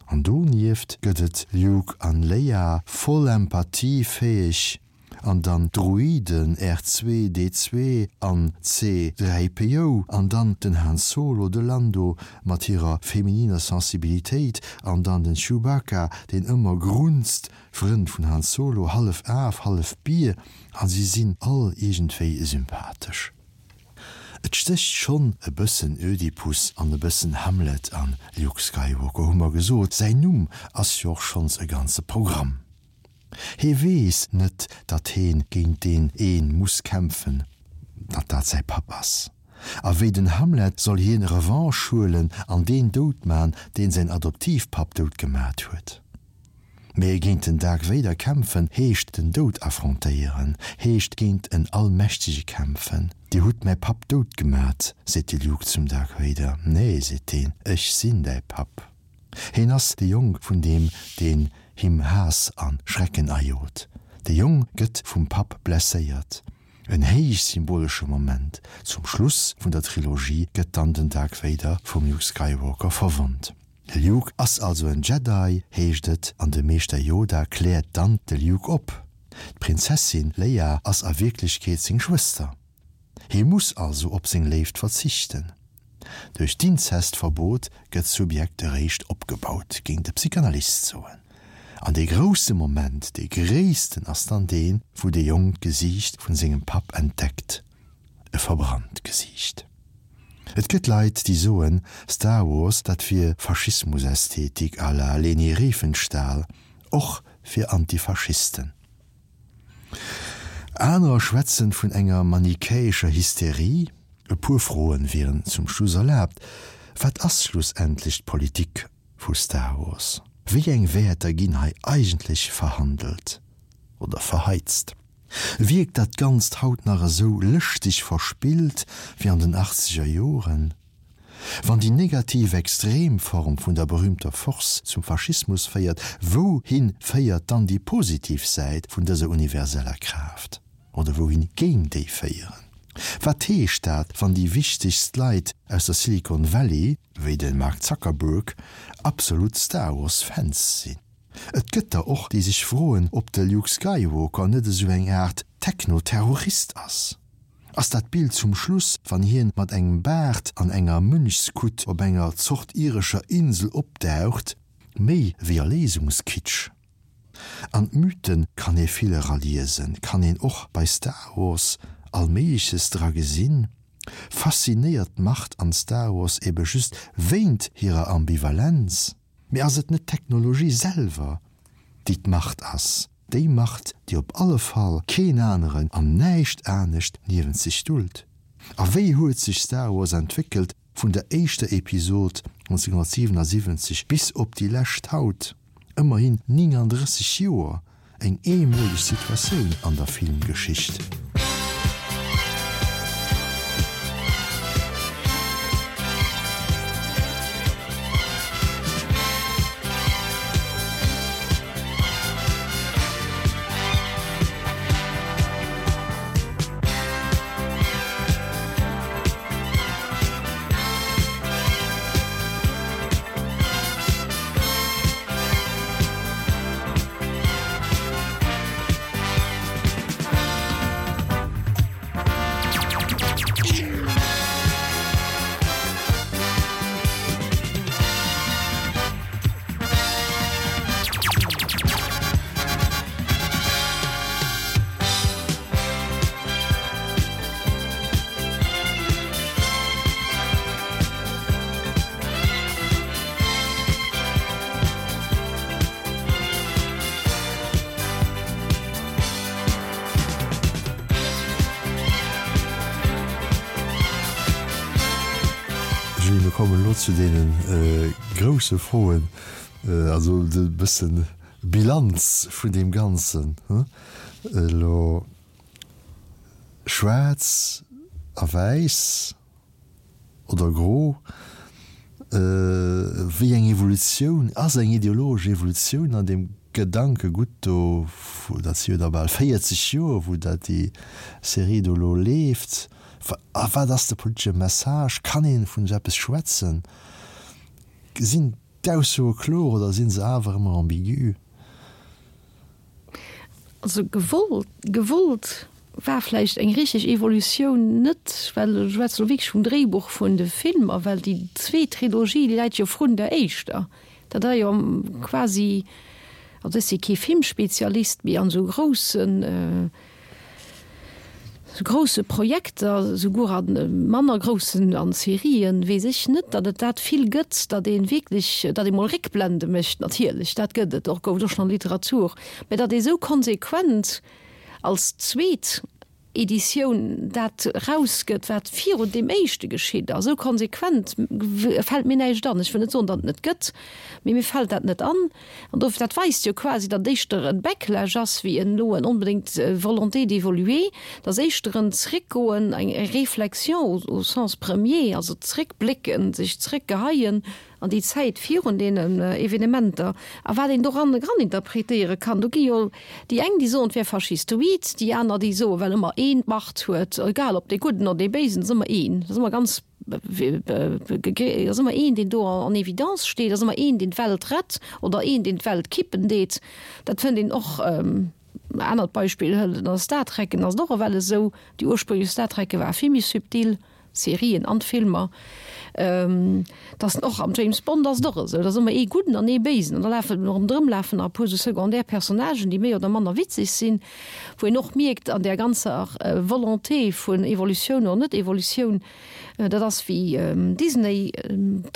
Speaker 1: An donieft gëtt et Luke an Leia, voll empathiefäeg, An dann d'Droiden R2, D2 an C 3 PO an dann den Han Solo, de Lando mat hirer femininer Sensibilitéit an dann den Chewbacca, deen ëmmer grunzt, Frënd vun Han Solo, hallef Af, hallef Bier an si sinn all iergendwéi sympathesch. Et stécht schonn e bëssen Ödipus an e bëssen Hamlet an Luke Skywalker, hu mer gesot, säin Numm ass jo och schonns e ganze Programm. Hee weess net, datt heen géint deen een muss kämpfen, datt dat säi Papp ass. A wéi den Hamlet soll hien Revanche huelen an deen dout man, deen säin Adoptivpapp dout gemat huet. Mee géint den Dark Vader kämpfen heescht den Doud affrontéieren, heescht géint en Allmächtege kämpfen. Dir hutt mäi Papp dout gemat, seet de Luke zum Dark Vader. Nee, seet deen, ech sinn däi Papp. Heen ass de Jong vun deem, deen him Haass a Schrecken ajot. De Jong gëtt vum Papp blesséiert. En héich symbolesche Moment, zum Schluss vun der Trilogie gëtt dann den Dark Vader vum Luke Skywalker verwonnt. De Luke ass also en Jedi, heescht et, an de Meeschter Yoda kläert dann de Luke op, D'Prinzessin Leia ass a Wierklechkeet seng Schwëster. Hie muss also op seng Léift verzichten. Duerch d'Inzestverbot gëtt d'Subjekt eréischt opgebaut, géing de Psychanalyst soen. An dee grousse Moment, dee gréissten, ass dann deen, wou de Jong d'Gesiicht vun sengem Papp entdeckt, e verbrannt Gesiicht. Et gëtt Leit, déi soen, Star Wars, dat wier Faschismusästhetik à la Leni Riefenstahl, och fir Antifaschisten. Anerer schwätzen vun enger manichäescher Hysterie. E puer Froen wieren zum Schluss erlaabt, Wat ass schlussendlech d'Politik vu Star Wars? Wéi eng Wäerter ginn hei eigentlech verhandelt oder verheizt? Wierkt dat Ganzt haut nach esou lëschteg verspillt wéi an den achtzeger Joren? Wann déi negativ Extremform vun der berühmter Force zum Faschismus féiert, wouhin féiert dann déi positiv Säit vun dëser universeller Kraaft? Oder wouhin géing déi féieren? Wat heescht dat, wann déi wichtegst Leit aus der Silicon Valley, wéi de Mark Zuckerberg, absolut Star Wars Fans sinn? Et gëtt der och, déi sech froen, ob de Luke Skywalker net esou eng Aart Techno-Terrorist ass. Ass dat Bild zum Schluss, wann hien mat engem Baart an enger Mönchskutt op enger Zort irescher Insel opdaucht, méi wéi Erléisungskitsch? An d'Mythen kann ee vill eraliesen, kann een och bei Star Wars Allméigleches dra gesinn. Faszinéiert d'Macht an Star Wars ebe just wéint hirer Ambivalenz? Mee ass et net d'Technologie selwer, déi d'Macht ass? Déi Macht, déi op alle Fall keen aneren an näischt anescht niewent sech dullt? A wéi huet sech Star Wars entwéckelt vun der éischter Episod 1977 bis op déi lescht haut? Ëmmerhin 39 Joer, eng eemoleg Situatioun an der Filmgeschicht. Julie, mir kommen elo zu deene grousse Froen, also e bëssen Bilanz vun deem Ganzen elo. Schwaarz a wäiss oder gro? Wéi eng Evolutioun ass eng ideologesch Evolutioun an deem Gedankegutt do, dat si jo da bal 40 Joer, wou dat déi Serie do elo leeft. A wat ass de politesche Message? Kann ee vun esou eppes schwätzen? Sinn d'Aussoe kloer oder si se awer ëmmer ambigu?
Speaker 2: Also gewollt, gewollt war vläicht eng richteg Evolutioun net, well ech schwätze lo wierklech vum Dréibuch vun de Filmer, well déi zweet Trilogie, déi läit jo vrun der éischter. Dat ass jo quasi, also ech si kee Filmspezialist, mee an esou groussen, Sou grousse Projekter, souguer a manner groussen, an Serien, weess ech net, datt et dat vill gëtt, datt ee wierklech, datt ee mol Réckblende mécht. Natierlech, dat gëtt et och, gouf et och schonn an der Literatur, mä datt ee sou konsequent als zweet Editioun dat erausgëtt, wat virun deem éischte geschitt ass, esou konsequent fält mir näischt an. Ech wëll net soen, datt et net gëtt, mee mir fält dat net an. An dofir, dat weist jo quasi, datt éischter e Backlash ass wéi en elo en onbedéngt Volonté d'évoluer, datt éischter en Zréckgoen, eng Réflexion au sens premier, also zréckblécken, sech zréckgeheien. an déi Zäit virun deenen Evenementer a wat een doran eraninterpretéiere kann. Do gi jo déi eng, déi soen, et wär faschistoid, déi aner, déi soen, well ëmmer een d'Macht huet, egal ob dee Gudden oder dee Béisen, et ass ëmmer een, et ass ëmmer ganz, et ass ëmmer een, deen do en évidence steet, et ass ëmmer een, deen d'Welt rett oder een, deen d'Welt kippen deet. Dat fënnt een och. Anert Beispill hëlt an der Star Trekken ass et och ewell esou, déi ursprünglech Star Trekke war vill méi subtil, d'Serien an d'Filmer, dass och am James Bond ass et och esou, et ass ëmmer ee Gudden an ee Béisen an da lafen ronderëm lafen nach e puer esou secondaire Personnagen, déi méi oder manner witzeg sinn, wou een och mierkt an där ganzer Volonté vun Evolutioun oder net-Evolutioun, Dat ass wéi Disney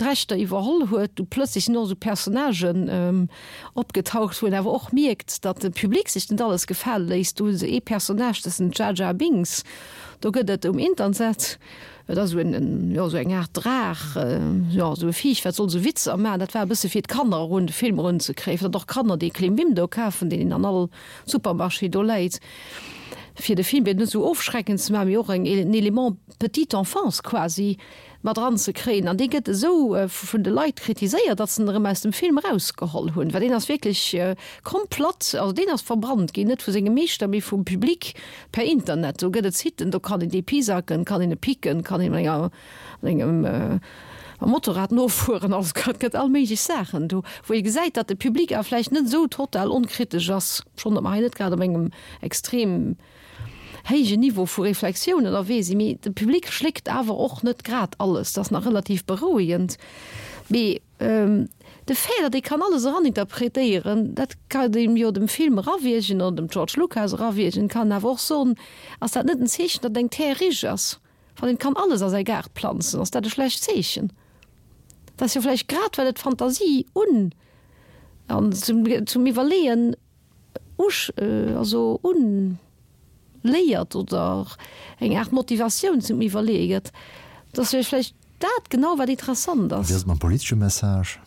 Speaker 2: d'Rechter iwwerholl huet, du plëtzlech sinn och esou Personnagen opgetaucht, wou een awer och mierkt, datt de Public sech net alles gefale léisst. Do hu se ee Personnage, dat ass den Jar Jar Binks, do gëtt et um Internet, dat ass esou en, jo esou eng Aart Draach, jo esou e Viech, wat soll esou Witzer maachen. Dat war e bësse fir d'Kanner erun de Film erunzekréien, fir datt och Kanner dee Klimbim do kafen, deen een an all Supermarché do läit, fir de Film net esou ofschreckend ze maachen, mee och en Element petite enfance quasi mat eranzekréien. An dee gëtt esou vun de Leit kritiséiert, datt se en erëm aus dem Film erausgeholl hunn, well deen ass wierklech komplett, also deen ass verbrannt ginn, net vu sengem Meeschter, mee vum Public per Internet. Do gëtt et Siten, do kann een dee pisacken, kann een e picken, kann een enger mat engem Motorrad nofueren, also et gëtt all méiglech Saachen do, wou ee gesäit, datt de Public awer vläicht net esou total onkritesch ass, schonn datt mer hei net grad op engem extrem héijen Niveau vu Reflexioun ënnerwee sinn, mee de Public schléckt awer och net grad alles, dat ass nach relativ berouegend. Mee de Fait, datt ee kann alles eraninterpretéieren, dat kann een jo dem Film erawiergen oder dem George Lucas erawiergen, kann awer och soen, ass dat net en Zeechen, datt eng Terre riche ass? Wann een kann alles a säi Gaart planzen, ass dat e schlecht Zeechen? Dat ass jo vläicht grad well et d'Fantasie un an zum zum Iwwerleeën usch also un léiert oder eng Aart Motivatioun zum Iwwerleeë gëtt. Dat ass jo vläicht dat genau wat interessant ass.
Speaker 1: Wéi ass et mam politesche Message?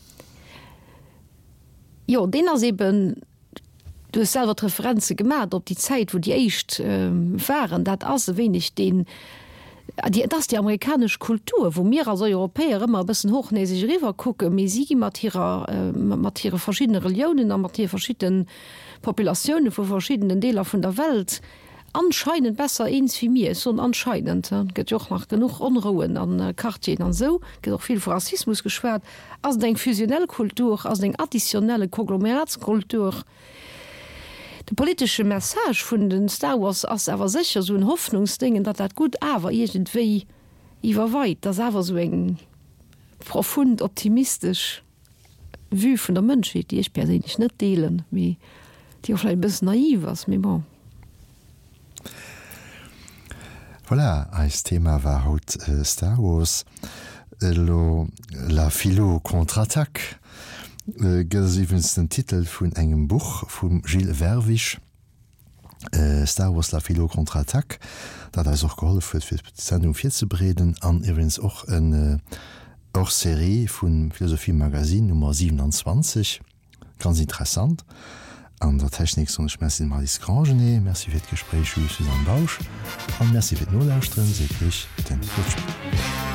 Speaker 2: Jo, deen ass eben Du hues selwer d'Referenze gemat op déi Zäit, wou déi éischt waren. Dat ass e wéineg deen, et ass déi amerikanesch Kultur, wou mir als Europäer ëmmer e bëssen hochnäseg eriwwer kucken, mee si gi mat hirer, mat hire verschiddene Reliounen a mat hire verschidde Populatioune vu verschiddenen Deeler vun der Welt anscheinend besser eens wéi mir. Ech soen anscheinend, et gëtt jo och nach genuch Onrouen a Quartieren an esou, et gëtt och vill vu Rassismus geschwat. Ass et eng fusionnel Kultur, ass et eng additionnelle Konglomeratskultur? De politesche Message vun de Star Wars ass awer sécher esou en Hoffnungsdéngen, datt dat Gutt awer iergendwéi iwwerweit, datt awer esou eng profund optimistesch Vue vun der Mënschheet, déi ech perséinlech net deelen, mee déi och vläicht e bëssen naiv ass, mee bon.
Speaker 1: Voilà, eist Thema war haut Star Wars. Elo La philo contre-attaque gëtt ass iwwregens den Titel vun engem Buch vum Gilles Vervisch. Star Wars La Philo Contre-Attaque, dat eis och gehollef huet fir d'Sendung virzebereeden an iwwregens och en Hors-série vum Philosophie Magazine Nummer 27, ganz interessant. An der Technik soen ech Merci dem Alice Grangenet, Merci fir d'Gespréich Jules Suzanne Bausch an Merci fir d'Nolauschteren, seet iech den Claude Schmit.